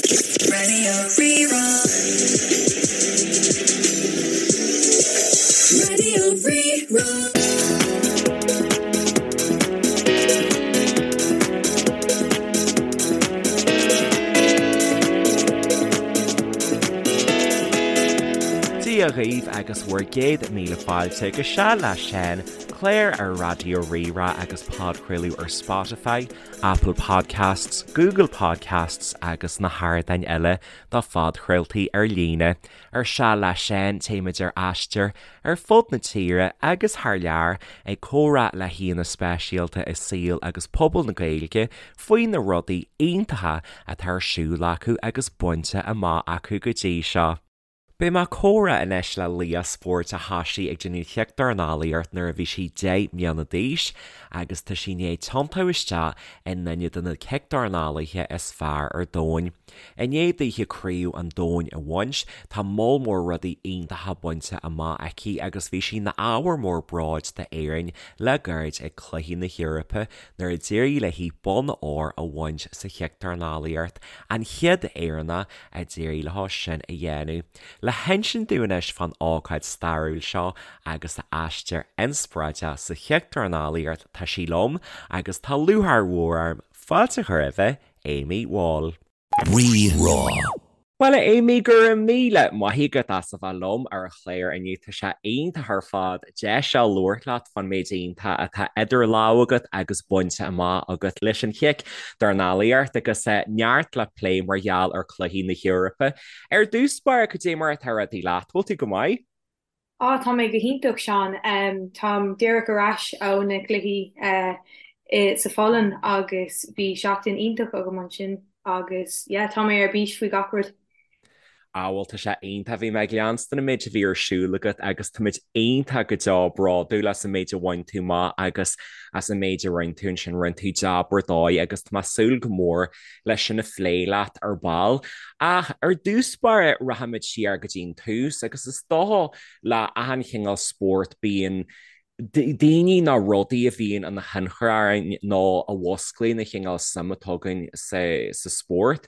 Raidió Rí-Rá. Raidió Rí-Rá. Dia dhaoibh agus bhur gcéad míle fáilte go Seal le Seán, clár ar Raidió Rí-Rá agus podchraoladh ar Spotify, Apple Podcasts, Google Podcasts agus na hardáin eile do phodchraoltaí ar líne. Ar Seal le Seán, téimid ar aistear ar fud na tíre agus thar lear ag comhrá le haíonna speisialta i saol agus pobal na Gaeilge faoi na rudaí iontacha atá ar siúl acu agus bainte amach acu go dtí seo. Beidh mé ag comhrá anois le laoch spóirt a thosaigh ag déanamh chic-dornálaíocht nuair a bhí sí 10 mbliana d'aois agus tá sí i ndiaidh tiontú isteach i nduine de na cic-dornálaithe is fearr ar domhan. I ndiaidh daoithe craobh an domhain a bhaint, tá moll mór rudaí iontacha bainte amach aici agus bhí sí ina ábhar mór bróid d'Éirinn le gairid ag Cluichí na hEorpa nuair a d'éirigh léi bonn óir a bhaint sa chic-dornálaíocht, an chéad Éireannach a d'éirigh leo sin a dhéanamh. Le hinsint dúinn anois fán ócáid stairiúil seo agus a aistear inspioráideach sa chic-dornálaíocht tá sí liom agus tá lúcháir mhór orm fáilte a chur roimhe, Amy Wall. Rí-Rá. Bhuel a Amy, go raibh míle maith agat as a bheith liom ar an chlár inniu. Tá sé iontach ar fad deis a labhairt leat fán méid iontach atá idir lámha agat agus bainte amach agat leis an chic-dornálaíocht agus neart le plé mar gheall ar Chluichí na hEorpa. Ar dtús báire, cad é mar atá rudaí leat? Bhfuil tú go maith? Á, tá mé go hiontach, Seán. Táim díreach ar ais ó na cluichí sa Pholainn agus bhí seachtain iontach agam ansin agus yeah, tá mé ar bís faoi gach rud. Á bhuel tá sé iontach, bhí mé ag leanstan an méid a bhí ar siúl agat agus táimid iontach go deo bródúil as an méid a bhain tú amach agus as an méid a rinne tú ansin, rinne tú jab ar dóigh agus tá mé ag súil go mór leis sin a phlé leat ar ball. Ach ar dtús báire rachaimid siar go dtí an tús agus is dócha le achan chineál spórt bíonn daoine nó rudaí a bhíonn ina thionchar orainn nó a mhusclaíonn an chineál suim atá againn sa spórt.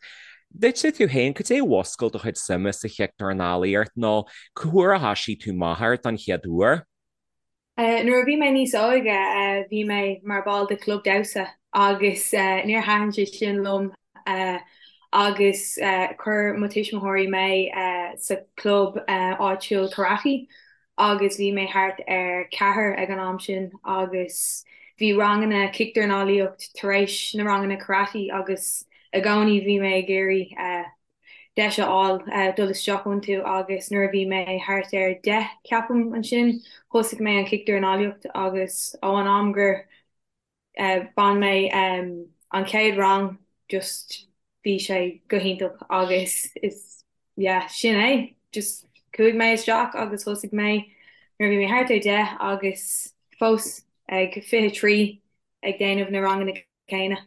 Duitse tú féin, cad é a mhuscail do chuid suime sa chic-dornálaíocht nó cá huair a thoisigh tú amach air don chéad uair? Nuair a bhí mé níos óige bhí mé mar ball de chlub damhsa agus níor thaitin sé sin liom agus chuir mo tuismitheoirí mé sa chlub áitiúil karate agus bhí mé thart ar cheathair ag an am sin agus bhí ranganna cicdornálaíocht tar éis na ranganna karate agus i gcónaí bhí mé ag iarraidh deis a fháil dul isteach iontu agus nuair a bhí mé thart ar 10 ceapaim ansin thosaigh mé an cicdornálaíocht agus ó an am gur Bhain mé an chéad rang just bhí sé go hiontach agus is yeah sin é just chuaigh mé isteach agus thosaigh mé nuair a bhí mé thart ar 10 agus fós ag 23 ag déanamh na ranganna céanna.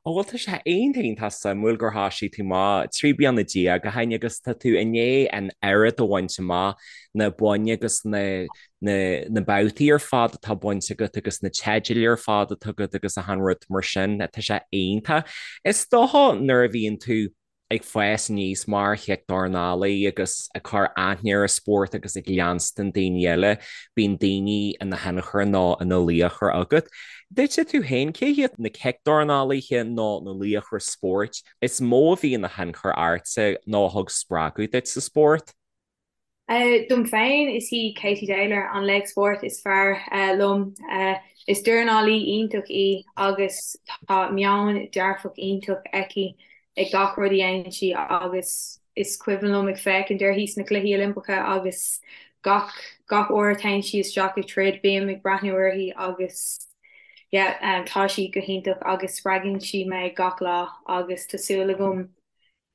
Ó bhuel tá sé iontach iontach suimiúil gur thoisigh tú amach 13 bliana ó shin agus tá tú i ndiaidh an oiread a bhaint amach, na boinn agus na na babhtaí ar fad atá bainte agat agus na teidil ar fad atá agat agus achan rud mar sin, tá sé iontach. Is dócha nuair a bhíonn tú ag fás aníos mar chic-dornálaí agus ag cur aithne ar an spórt agus ag leanstan daoine eile, bíonn daoine ina thionchar nó ina laochra agat. Duitse tú féin, cé hiad na cic-dornálaithe nó na laochra spóirt is mó a bhí ina thionchar ortsa nó a thug spreagadh duit sa spórt? Dom féin, is í Katie Taylor an laoch spóirt is fearr liom. Is dornálaí iontach í agus tá meon dearfach iontach aici ag gach rud a dhéanann sí agus is cuimhin liom ag féachaint uirthi sna Cluichí Oilimpeacha agus gach gach uair a théann sí isteach ag troid bím ag breathnú uirthi agus yeah tá sí go hiontach agus spreagann sí mé gach lá agus tá súil agam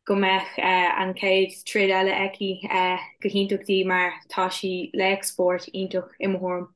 go mbeadh an chéad troid eile aici go hiontach di mar tá sí laoch spóirt iontach i mo thuairim.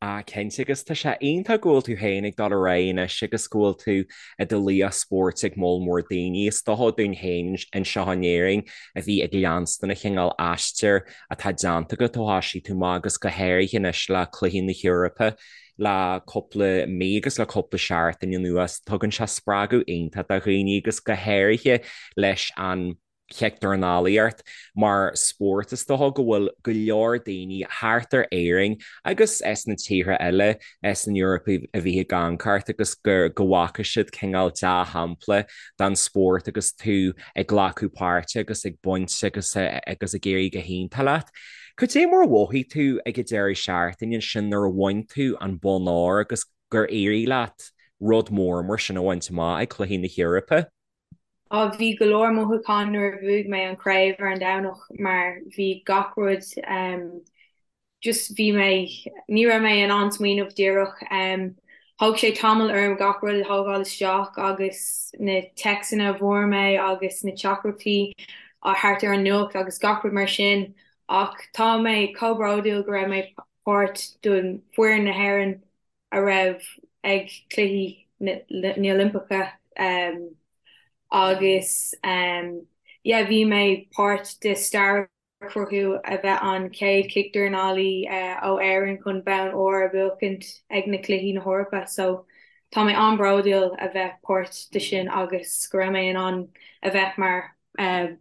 Ah cinnte, agus tá sé iontach go bhfuil tú féin ag dul ar aghaidh anois agus go bhfuil tú i do laoch spóirt ag moll mór daoine. Is dócha dúinn féin anseo in Éirinn a bhí ag leanstan an chineál aistir atá déanta agat ó thoisigh tú amach agus go háirithe anois le Cluichí na hEorpa le cúpla mí agus le cúpla seachtain anuas. Tugann sé spreagadh iontach do dhaoine agus go háirithe leis an chicdhornálaíocht mar spórt. Is dócha go bhfuil go leor daoine thart ar Éirinn agus sna tíortha eile san Eoraip a bhí ag amharc ort agus go bhfaca siad cineál dea-shampla den spórt agus tú ag glacadh páirte agus ag baint agus agus ag éirí go hiontach leat. Cad é mar a mhothaigh tú ag an deireadh seachtaine ansin nuair a bhain tú an bonn óir agus gur éirigh leat rud mór mar sin a bhaint amach ag Cluichí na hEorpa? Á, bhí go leor mothúchán nuair a bhuaigh mé an chraobh ar an Domhnach mar bhí gach rud em just bhí mé, ní raibh mé in ann smaoineamh díreach em thóg sé tamall orm gach rud a thógáil isteach agus na téacsanna a bhfuair mé agus na teachtaireachtaí thart ar an nuacht agus gach rud mar sin ach tá mé chomh bródúil go raibh mé páirt den foireann na hÉireann a raibh ag Cluichí na nOilimpeacha agus yeah bhí mé páirt de stair a chruthú a bheith an chéad chicdhornálaí ó Éirinn chun bonn óir a bhuachaint ag na Cluichí na hEorpa so tá mé an-bhródúil a bheith páirt de sin agus go raibh mé in ann a bheith mar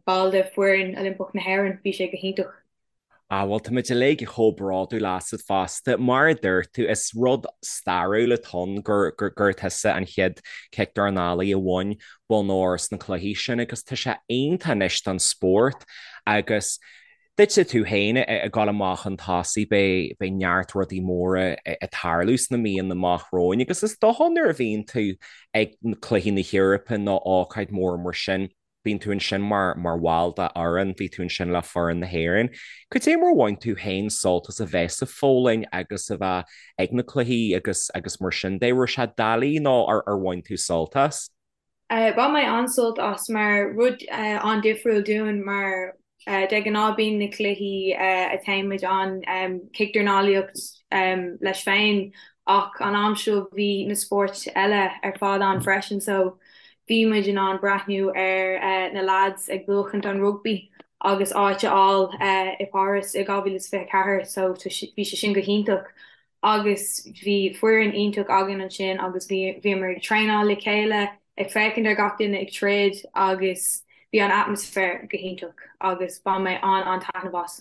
ball de foireann Oilimpeach na hÉireann, bhí sé go hiontach. Ah, bhuel, táimid uilig chomh bródúil asat fosta. Mar a dúirt tú, is rud stairiúil atá ann gur, gur, gur tusa an chéad chicdhornálaí a bhain bonn óir sna cluichí sin agus tá sé iontach anois don spórt agus duitse tú féin ag dul amach chun tosaigh, beidh, beidh neart rudaí móra ag tarlú sna míonna amach romhainn agus is dócha nuair a bhíonn tú ag cluichí na hEorpa nó ócáid mór mar sin, Bíonn tú ansin mar mar bhall de fhoireann, bhí tú ansin le foireann na hÉireann. Cad é mar a bhain tú féin sult as a bheith sa Pholainn agus a bheith ag na cluichí agus agus mar sin de? Raibh sé doiligh nó ar ar bhain tú sult as? Bhain mé an-sult as mar rud an-difriúil dúinn mar de ghnáth bíonn na cluichí a téann muid ann cicdhornálaíocht leis féin ach an am seo bhí na spóirt eile ar fad ann freisin so bhí muid in ann breathnú ar na lads ag buachaint an rugbaí agus áit a fháil i Páras i 2024 so bhí sé sin go hiontach agus bhí foireann iontach againn ansin agus bhí bhíomar ag traenáil le chéile ag féachaint ar gach duine ag troid agus bhí an atmaisféar go hiontach agus bhain mé an-an-taitneamh as.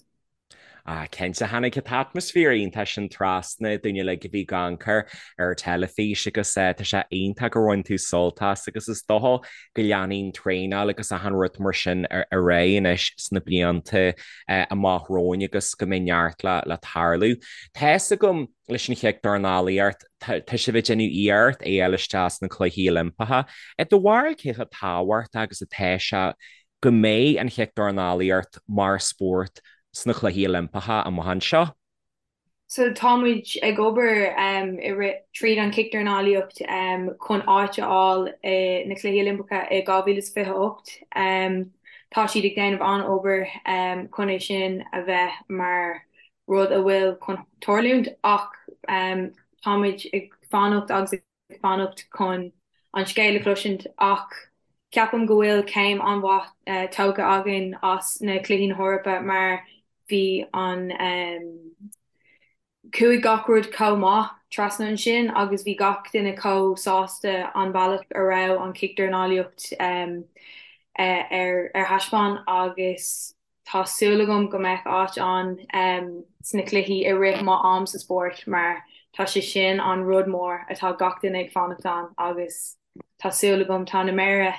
Ah, cinnte, tháinig an t-atmaisféar iontach sin trasna dúinn uilig a bhí ag amharc air ar an teilifís agus tá sé iontach gur bhain tú sult as agus is dócha go leanfaidh an traenáil agus achan rud mar sin ar aghaidh anois sna blianta amach romhainn agus go mbeidh neart le le tarlú. Tá fhios agam leis an chicdhornálaíocht, tá sibh ag déanamh iarracht é a fháil isteach sna Cluichí Oilimpeacha. I do bharúil cé chomh tábhachtach agus atá sé go mbeidh an chicdhornálaíocht mar spórt sna Cluichí Oilimpeacha amach anseo. So tá muid ag obair i rith tríd an chicdhornálaíocht chun áit a fháil i na Cluichí Oilimpeacha i 2028. Tá siad ag déanamh an-obair chun é sin a bheith mar rud a bhfuil chun tarlúint ach tá muid ag fanacht agus ag ag fanacht chun an scéal a chloisint ach ceapaim go bhfuil céim an-mhaith tógtha againn as na Cluichí na hEorpa mar bhí an chuaigh gach rud chomh maith trasna ansin agus bhí gach duine chomh sásta an bealach a raibh an chicdhornálaíocht ar thaispeáin agus Tá súil agam go mbeidh áit ann sna cluichí i rith mo am sa spórt mar tá sé sin an rud mór atá gach duine ag fanacht ann agus tá súil agam, tá na méara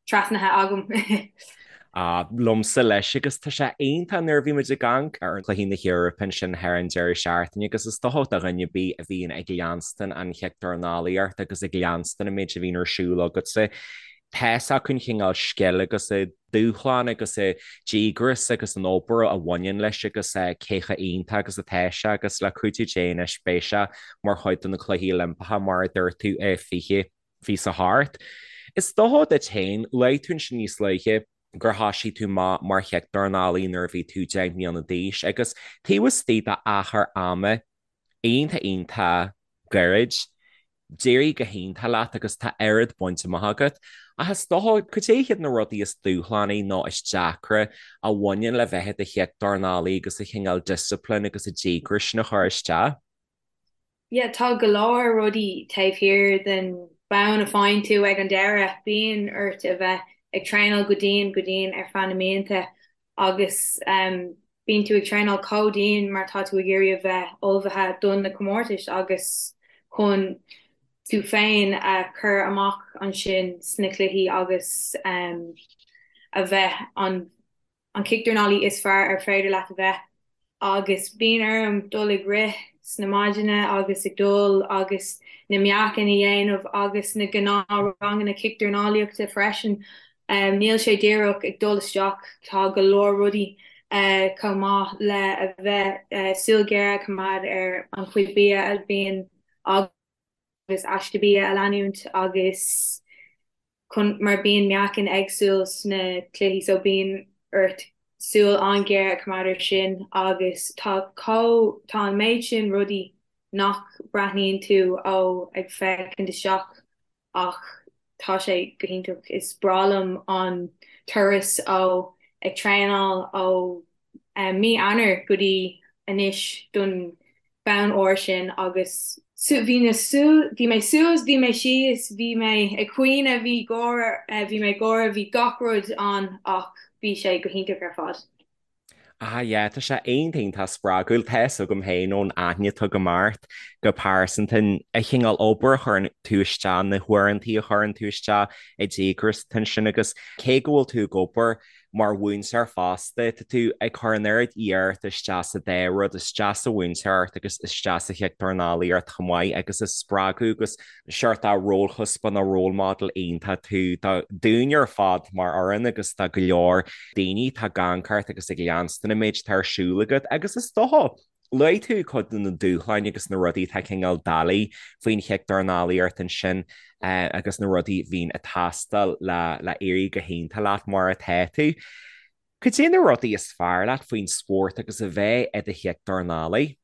trasnaithe agam. Ah, liomsa leis agus tá sé iontach nuair a bhí muid ag amharc ar Chluichí na hEorpa ansin thar an deireadh seachtaine agus is dócha do dhuine ar bith a bhíonn ag leanstan an chicdhornálaíocht agus ag leanstan an méid a bhíonn ar siúl agatsa, tá fhios acu an chineál scil agus an dúshlán agus an díograis agus an obair a bhaineann leis agus cé chomh iontach agus atá sé agus le cuidiú Dé anois beidh sé mar chuid de na Cluichí Oilimpeacha mar a dúirt tú i 2028. Is dócha duit féin, luaigh tú ansin níos luaithe gur thoisigh tú amach mar chicdhornálaí nuair a bhí tú 10 mbliana d'aois agus taobh istigh d'achar ama. iontach iontach gairid. D'éirigh go hiontach leat agus tá oiread bainte amach agat. Ach is dócha, cad é hiad na rudaí is dúshlánaí nó is deacra a bhaineann le bheith i do chiocdornálaí agus an chineál discipline agus an díograis sin a chur isteach? Yeah, tá go leor rudaí taobh thiar den bonn a faigheann tú ag an deireadh. Bíonn ort a bheith ag traenáil go dian, go dian ar feadh na mblianta agus bíonn tú ag traenáil chomh dian mar tá tú ag iarraidh a bheith ullmhaithe don na comórtais agus chun tú féin a chur amach ansin sna cluichí agus a bheith an an cicdornálaí is fearr ar féidir leat a bheith agus bíonn orm dul ag rith sna maidine agus ag dul agus na meáchain a dhéanamh agus na gnáthranganna cicdornálaíochta freisin. Níl sé díreach ag dul isteach, tá go leor rudaí chomh maith le a bheith súil ghéar a choimeád ar an chuid bia a bhíonn agus aiste bia a leanúint agus chun mar bíonn meáchain éagsúil sna cluichí so bíonn ort súil an-ghéar a choimeád ar sin agus tá chomh tá an méid sin rudaí nach breathnaíonn tú ó ag féachaint isteach ach tá sé go hiontach. Is breá liom an turas ó ag traenáil ó mí Eanáir go dtí anois don bonn óir sin agus bhí na bhí mé suas, bhí mé síos, bhí mé ag caoineadh, bhí gáire, bhí mé ag gáire, bhí gach rud ann ach bhí sé go hiontach ar fad. Ah yeah, tá sé iontach iontach spreagúil. Tá fhios agam féin ón aithne atá agam ort go pearsanta an chineál obair a chuireann tú isteach, na huaireantaí a chuireann tú isteach, an díograis atá ansin agus cé go bhfuil tú ag obair mar mhúinteoir fosta, tá tú ag cur an oiread iarrachta isteach sa dá rud, isteach sa mhúinteoireacht agus isteach sa chiocdornálaíocht chomh maith agus is spreagadh agus seort de rólchuspóir nó role model iontach tú do dúinne ar fad mar fhoireann agus do go leor daoine atá ag amharc ort agus ag leanstan an méid atá ar siúl agat agus is dócha luaigh tú cuid de na dúshláin agus na rudaí atá cineál doiligh faoin chiocdornálaíocht ansin agus na rudaí a bhíonn ag teastáil le le éirí go hiontach leat mar atá tú. Cad é na rudaí is fearr leat faoin spórt agus a bheith i do chiocdornálaí?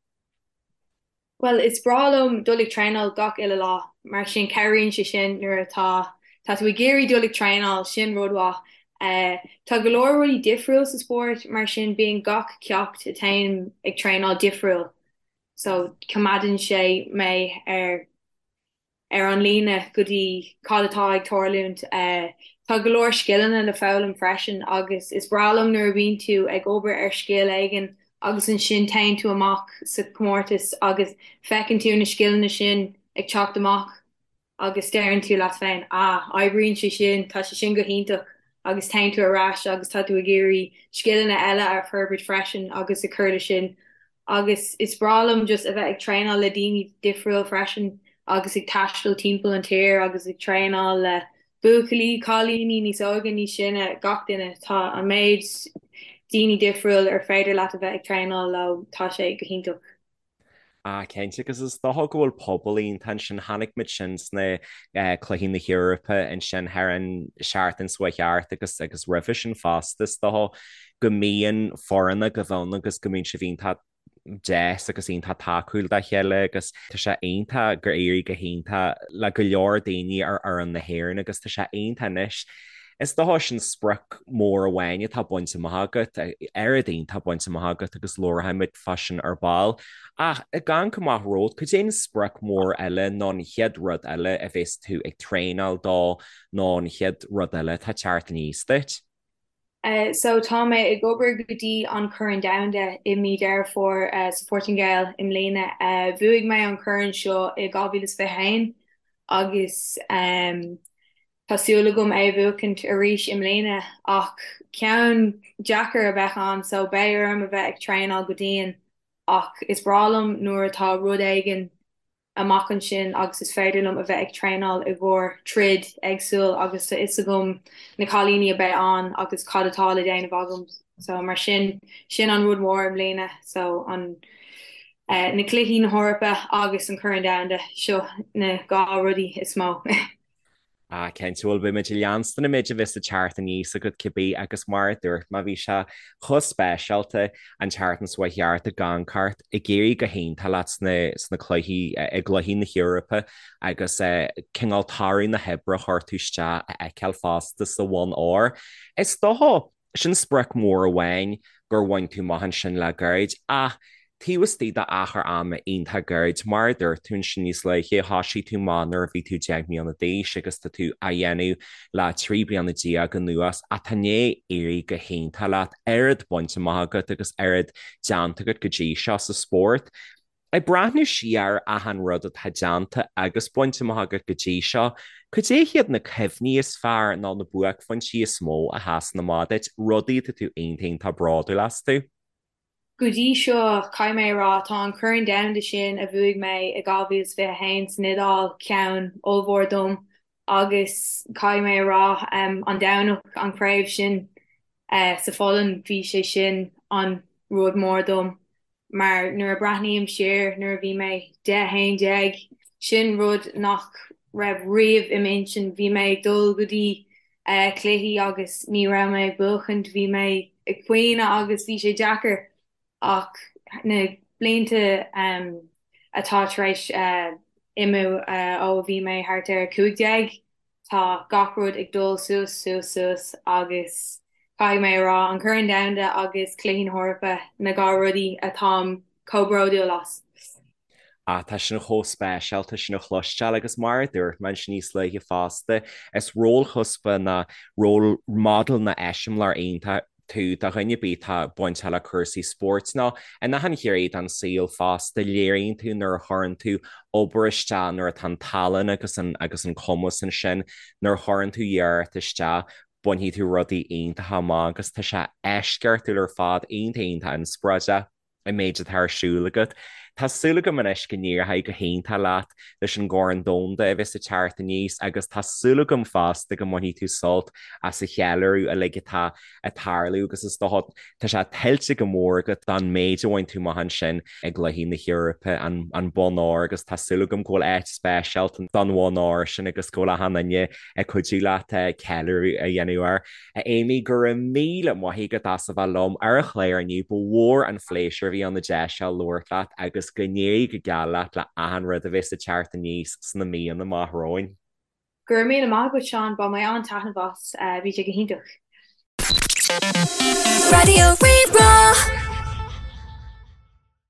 Bhuel, is breá liom dul ag traenáil gach uile lá, mar sin cabhraíonn sé sin nuair atá tá tú ag iarraidh dul ag traenáil, sin rud mhaith. Tá go leor rudaí difriúil sa spórt, mar sin bíonn gach ceacht a téim ag traenáil difriúil, so coimeádann sé mé ar ar an líne go dtí cad atá ag tarlúint. Tá go leor scileanna le foghlaim freisin agus is breá liom nuair a bhíonn tú ag obair ar scil éigin agus ansin téann tú amach sa chomórtas agus feiceann tú na scileanna sin ag teacht amach agus deireann tú leat féin 'ah, oibríonn sé sin, tá sé sin go hiontach' agus téann tú ar ais agus tá tú ag iarraidh scileanna eile a forbairt freisin agus ag cur le sin. Agus is breá liom just a bheith ag traenáil le daoine difriúil freisin agus ag taisteal timpeall an tír agus ag traenáil le buachaillí, cailíní níos óige, níos sine, gach duine. Tá an méid daoine difriúil ar féidir leat a bheith ag traenáil leo, tá sé go hiontach. Ah, cinnte, agus is dócha go bhfuil pobal iontach ansin, chonaic muid sin sna Cluichí na hEorpa ansin thar an seachtain seo chuaigh thart agus agus roimhe sin fosta, is dócha go mbíonn foirne agaibh ann agus go mbíonn sibh iontach deas agus iontach tacúil dá chéile agus tá sé iontach gur éirigh go hiontach le go leor daoine ar fhoireann na hÉireann agus tá sé iontach anois. Is dócha sin sprioc mór amháin atá bainte amach agat, oiread iontach bainte amach agat agus labharfaimid fá sin ar ball. Ach ag amharc amach romhat, cad é an sprioc mór eile nó an chéad rud eile a bheas tú ag traenáil dó nó an chéad rud eile atá ag teacht aníos duit? So tá mé ag obair go dtí an Corn Domhanda i mí Deireadh Fómhair sa Phortaingéil i mbliana. Bhuaigh mé an corn seo i 2021 agus Tá súil agam é a bhuachaint arís i mbliana ach ceann deacair a bheadh ann so beidh orm a bheith ag traenáil go dian ach is breá liom nuair atá rud éigin amach ansin agus is féidir liom a bheith ag traenáil i gcomhair troid éagsúil agus tá fhios agam na cailíní a beidh ann agus cad atá le déanamh agam so mar sin sin an rud mór i mbliana so an na cluichí na hEorpa agus an Corn Domhanda seo na dhá rudaí is mó. Ah, cinnte, bhuel, beidh muid ag leanstan an méid a bheas ag teacht aníos agat cibé agus mar a dúirt mé, bhí sé chomh speisialta an tseachtain seo chuaigh thart ag amharc ort ag éirí go hiontach leat sna, sna cluichí, i gcluichí na hEorpa agus cineál toradh na hoibre a chuir tú isteach a fheiceáil fosta sa bhonn óir. Is dócha, Sin sprioc mhór amháin gur bhain tú amach ansin le gairid, ach taobh istigh d'achar ama iontach gairid, mar a dúirt tú ansin níos luaithe, thoisigh tú amach nuair a bhí tú 10 mbliana d'aois agus tá tú á dhéanamh le 13 bliana anuas ach tá i ndiaidh éirí go hiontach leat, oiread bainte amach agat agus oiread déanta agat go dtí seo sa spórt. Ag breathnú siar ar achan rud atá déanta agus bainte amach agat go dtí seo, cad é hiad na cuimhní is fearr nó na buaicphointí is mó a sheasann amach duit, rudaí atá tú iontach iontach bródúil astu? Go dtí seo, caithfidh mé a rá, tá an Corn Domhanda sin a bhuaigh mé i 2021 san Iodáil ceann ollmhór dom agus caithfidh mé a rá, an Domhnach, an chraobh sin sa Pholainn, bhí sé sin an rud mór dom. Mar nuair a breathnaím siar nuair a bhí mé 10, 11, sin rud nach raibh riamh i m'intinn. Bhí mé ag dul go dtí cluichí agus ní raibh mé ag buachaint, bhí mé ag caoineadh agus bhí sé deacair. Ach na blianta atá tar éis imiú ó a bhí mé thart ar 15, Tá gach rud ag dul suas, suas, suas agus caithfidh mé a rá, an Corn Domhanda agus Cluichí na hEorpa na dhá rudaí atáim chomh bródúil as. Ah, tá sin chomh speisialta sin a chloisteáil agus mar a dúirt mé ansin níos luaithe fosta, is rólchuspa nó role model nó eiseamláir iontach tú do dhuine ar bith atá bainteach le cúrsaí spóirt nó in achan ghné den saol fosta. Léiríonn tú nuair a chuireann tú obair isteach, nuair atá an tallann agus an agus an cumas ansin, nuair a chuireann tú iarracht isteach, bainfidh tú rudaí iontacha amach agus tá sé eisceachtúil ar fad, iontach iontach inspioráideach. an méid atá ar siúl agat. Tá súil agam anois go n-éireoidh go hiontach leat leis an gCorn Domhanda a bheas ag teacht aníos agus tá súil agam fosta go mbainfidh tú sult as an cheiliúradh uilig atá ag tarlú agus is dócha tá sé tuillte go mór agat don méid a bhain tú amach ansin i gCluichí na hEorpa, an bonn óir agus tá súil agam go bhfuil áit speisialta don bhonn óir sin agus go bhfuil achan duine ag cuidiú leat ceiliúradh a dhéanamh air. A Amy, go raibh míle maith agat as a bheith liom ar an chlár inniu. Ba mhór an phléisiúr a bhí ann an deis seo labhairt leat agus go n-éirí go geal leat le achan rud a bheas ag teacht aníos sna míonna amach romhainn. Go raibh míle maith agat, Seán. Bhain mé an-taitneamh as. Bhí sé go hiontach. Raidió Rí-Rá.